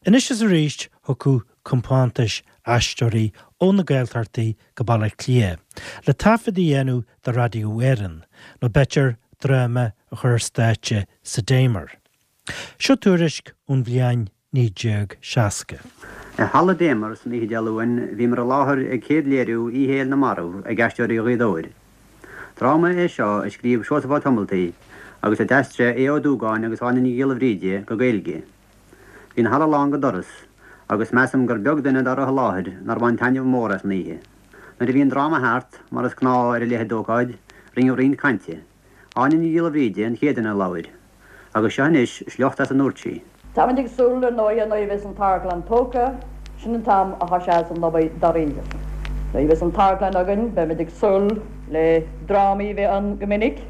Anois is arís thiocfadh compántais aisteoirí ó na Gaeltachtaí go Baile Átha Cliath le taifead a dhéanamh do Radio Éireann, nó b'fhéidir dráma a chur ar stáitse sa Damer. Seo tuairisc ón bhliain 1960. I Halla Damer san oíche Dé Luain bhíomar i láthair ag céad léiriú Oíche Fhéile na Marbh ag Aisteoirí Ghaoth Dobhair. Dráma é seo a scríobh Seosamh Ó Tomaltaigh agus a d'aistrigh Aodh Ó Dúgáin agus Áine Ní Ghiolla Bhríde go Gaeilge. Bhí an halla lán go doras agus measaim gur beag duine dá raibh i láthair nár bhain taitneamh mór as an oíche. Nuair a bhí an dráma thart, mar is gnáth ar a leithéid d'ócáid, rinneadh roinnt cainte. Áine Ní Ghiolla Bhríde an chéad duine a labhair. Agus seo anois sliocht as a ndúirt sí. Táimid ag súil, ar ndóighe, nuair a bheas an t-amharclann tógtha, sin an t-am a thoiseos an obair dáiríre. Nuair a bheas an t-amharclann againn, beimid ag súil le drámaí a bheith ann go minic,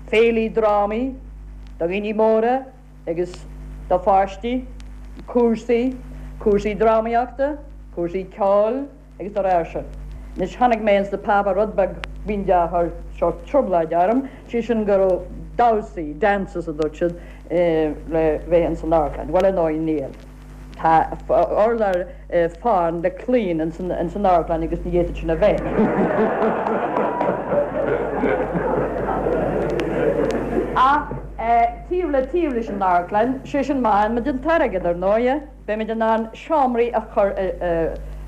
féilí drámaí do dhaoine móra agus do pháistí, cúrsaí, cúrsaí drámaíochta, cúrsaí ceoil, Agus dá réir sin. Anois chonaic mé ins na páipéir rud beag b'fhéidir a chuir sórt trioblóid orm, sé sin go raibh damhsaí, dances a dúirt siad, le bheith ins an amharclann. Bhuel ar ndóigh níl. Tá urlár fán le claíon ins an amharclann agus ní fhéadfadh sin a bheith. Ach taobh le taobh leis an amharclann, sé sin má fhaigheann muid an t-airgead ar ndóighe, Beimid in ann seomraí a chur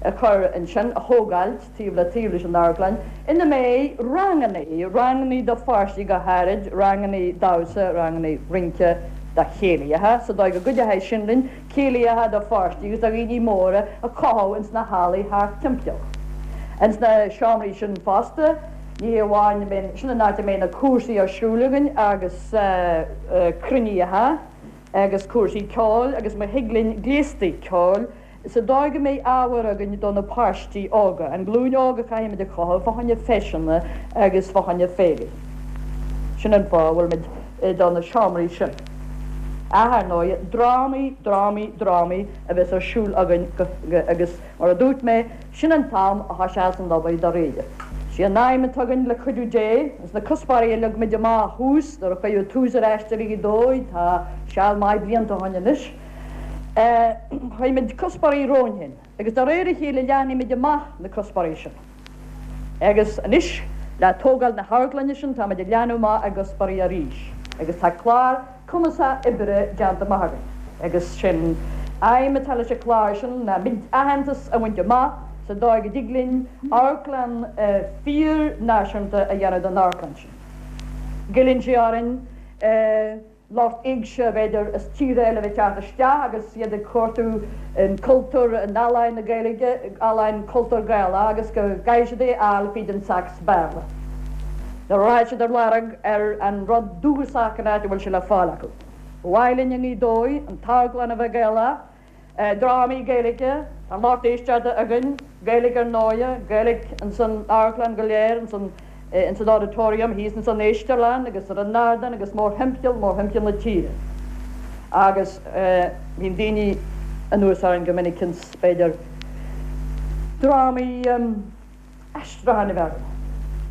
a chur ansin, a thógáilt taobh le taobh leis an amharclann, ina mbeidh rangannaí, rangannaí do pháistí go háirid, rangannaí damhsa, rangannaí rince do chéilithe, sa dóigh go gcuideoidh sin linn céilithe do pháistí agus do dhaoine móra a chothú ins na hallaí thart timpeall. Ins na seomraí sin fosta, ní hé amháin, sin an áit a mbeidh na cúrsaí ar siúl againn agus cruinnithe, agus cúrsaí ceoil agus má thig linn gléastaí ceoil sa dóigh go mbeidh ábhar againn do na páistí óga, an ghlúin óg a chaithfimid a chothú fá choinne feiseanna agus fá choinne féilí. Sin an fáth a bhfuilimid do na seomraí sin. Ach ar ndóigh, drámaí, drámaí, drámaí a bheas ar siúl againn agus mar a dúirt mé, Sin an t-am a thoiseos an obair dáiríre. Sí an aidhm atá againn le cuidiú Dé, agus na cuspóirí a leag muid amach thuas nuair a cuireadh tús ar Aisteoirí Ghaoth Dobhair, tá seal maith blianta ó shoin anois, chuir muid cuspóirí romhainn féin agus de réir a chéile leathnaigh muid amach na cuspóirí sin. Agus anois le tógáil na hamharclainne sin tá muid ag leathnú amach ár gcuspóirí arís agus tá clár cumasach oibre déanta amach againn agus sé'n aidhm atá leis an chlár sin ná muid aitheantas a bhaint amach sa dóigh go dtig linn amharclann fíor-náisiúnta a dhéanamh den amharclann sin. Goilleann sé orainn lucht éigse b'fhéidir as tíortha eile a bheith ag teacht isteach agus iad ag cuartú an cultúr, an ealaín na Gaeilge, ealaín cultúr Gaelach agus go gcaithfidh siad é a fháil fríd an sacs Béarla. Nuair a rachaidh siad ar lorg ar an rud dúchasach an áit a bhfuil sé le fáil acu. Ba mhaith linn i nGaoth Dobhair an t-amharclann a bheith Gaelach, drámaí Gaeilge, tá lucht éisteachta againn, Gaeilge ar ndóighe, Gaeilge ins an amharclann go léir, ins an ins an auditorium, thíos ins an éistearlann agus ar an ardán agus mórthimpeall, mórthimpeall na tíre. Agus bíonn daoine anuas orainn go minic ins, b'fhéidir, drámaí, aistriúcháin a bheith againn.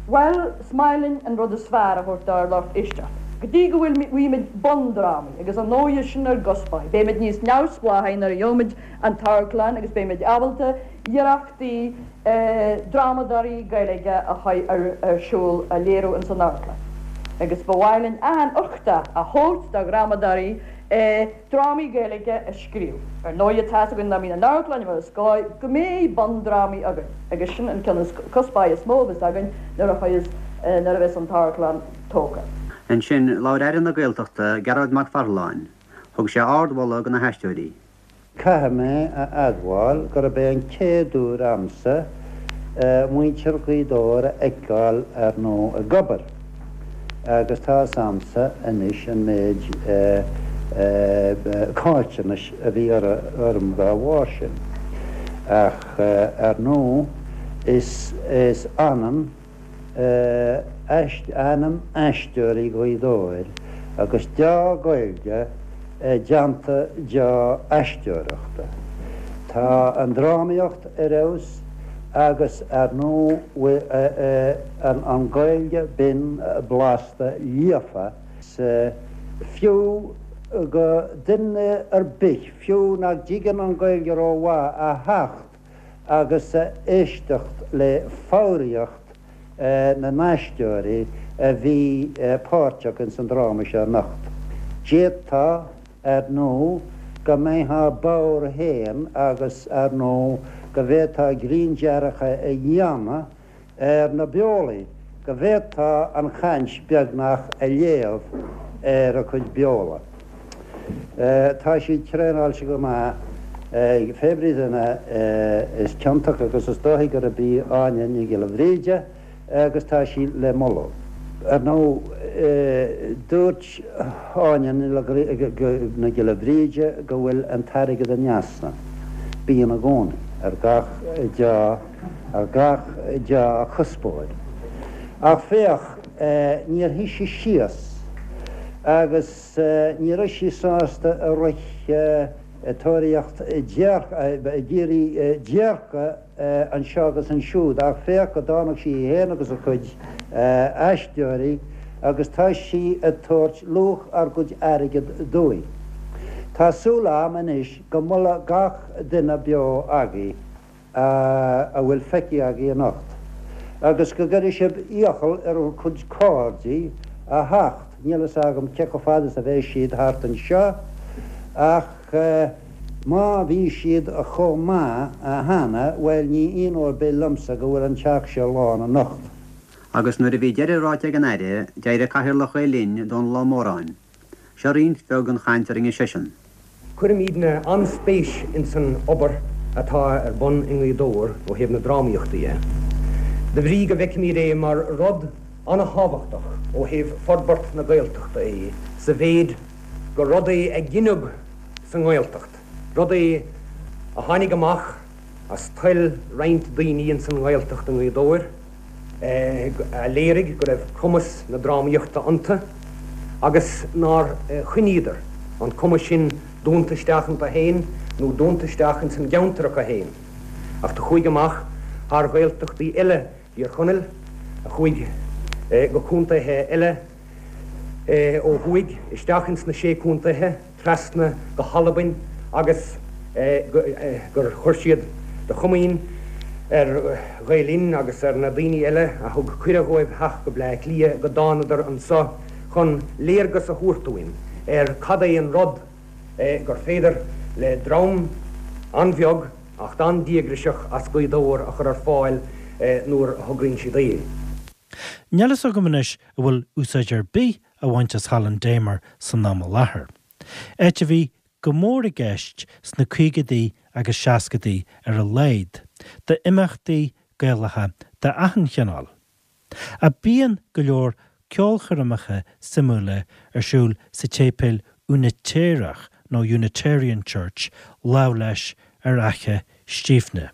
Bhuel, is maith linn an rud is fearr a thabhairt dár lucht éisteachta. Go dtí go bhfuil bhfaighimid bundrámaí, agus ar ndóighe sin ár gcuspóir, beimid níos neamhspleáchaí nuair a gheobhaimid an t-amharclann agus beimid ábalta iarrachtaí drámadóirí Gaeilge a chur ar siúl, a léiriú ins an amharclann. Agus ba mhaith linn achan uchtach a thabhairt do dhrámadóirí drámaí Gaeilge a scríobh. Ar ndóighe tá's againn dá mbíonn an amharclann mar is gá go mbeidh bundrámaí againn agus sin an ceann is cuspóir is mó a bheas againn nuair a chuireas nuair a bheas an t-amharclann tógtha. Ansin, labhair Aire na Gaeltachta, Gearóid Mac Pharthaláin. Thug sé ardmholadh do na haisteoirí. Caithfidh mé a admháil gurb é an chéad uair a'msa muintir Ghaoth Dobhair a fheiceáil ar ndóigh ag obair agus tá fhios a'msa anois an méid caillteanais a bhí orm dá bharr sin. Ach ar ndóigh is ionann ainm Aisteoirí Ghaoth Dobhair agus deá-Ghaeilge i dteannta deá-aisteoireachta. Tá an drámaíocht ar fheabhas agus ar ndóigh an Ghaeilge binn blasta líofa. Is fiú. go duine ar bith, fiú nach dtuigeann an Ghaeilge rómhaith, a theacht agus a éisteacht le foghraíocht na n-aisteoirí a bhí páirteach ins an dráma seo anocht. D'fhéadfá, ar ndóigh, go mbeifeá bodhar féin agus, ar ndóigh, go bhféadfá grinndearcadh a dhéanamh ar na beolaí, go bhféadfá an chaint beagnach a léamh ar a cuid beola. Tá siad traenáilte go maith ag pé brí duine is ciontach agus is dóichí gurb í Áine Ní Ghiolla Bhríde agus tá sí le moladh. Ar ndóigh, dúirt Áine Ní Ghiolla Bhríde go bhfuil an t-airgead in easnamh. Bíonn i gcónaí, ar gach deá, ar gach dea-chuspóir. Ach féach, níor shuigh sí síos agus. Ní raibh sí sásta a rith ag tóraíocht ag iarraidh déirce anseo agus ansiúd ach féach go dtáinig sí í féin agus a cuid aisteoirí agus tá sí ag tabhairt luach ár gcuid airgid dúinn. Tá súil a'm anois go molfaidh gach duine beo agaibh a bhfuil feicthe agaibh anocht, agus go gcuirfidh sibh iachall ar bhur gcuid cairde a theacht, níl fhios agam cé chomh fada is a bheidh siad thart anseo, ach má bhí siad chomh maith cheana, bhuel, ní ionadh ar bith liomsa go bhfuil an teach seo lán anocht. Agus nuair a bhí deireadh ráite ag an Aire, d'éirigh Cathaoirleach Ghael Linn, Dónall Ó Móráin. Seo roinnt bheag den chaint a rinne seisean. Cuirimídne an-spéis ins an obair atá ar bun i nGaoth Dobhair ó thaobh na drámaíochta dhe, de bhrí go bhfeicimíd é mar rud an-thábhachtach ó thaobh forbairt na Gaeltachta é sa mhéid gur rud é a gineadh sa nGaeltacht, rud é a tháinig amach as toil roinnt daoine ins an nGaeltacht i nGaoth Dobhair. a léirigh go raibh cumas na drámaíochta iontu agus nár choinníodar an cumas sin dúnta isteach iontu féin nó dúnta isteach ins an gceantar acu féin ach do chuaigh amach thar Ghaeltachtaí eile Thír Chonaill, a chuaigh go contaethe eile ó thuaidh, isteach ins na Sé Contaethe. trasna go hAlbain agus gur chuir siad de chomaoin ar Ghael Linn agus ar na daoine eile a thug cuireadh dhóibh theacht go Bleá Cliath go dtánadar anso chun léargas a thabhairt dúinn ar cad é an rud gur féidir le dream an-bheag ach an-díograiseach as Gaoth Dobhair a chur ar fáil nuair a thograíonn siad é. Níl fhios agam anois an bhfuil úsáid ar bith á bhaint as Halla an Damer san am i láthair. Áit a bhí go mór i gceist sna caogaidí agus seascadaí ar a laghad, d'imeachtaí Gaelacha d'achan chineál. Ach bíonn go leor ceolchoirmeacha suimiúla ar siúl sa tséipéal Úinitéireach nó Unitarian Church lámh leis ar Fhaiche Stífne.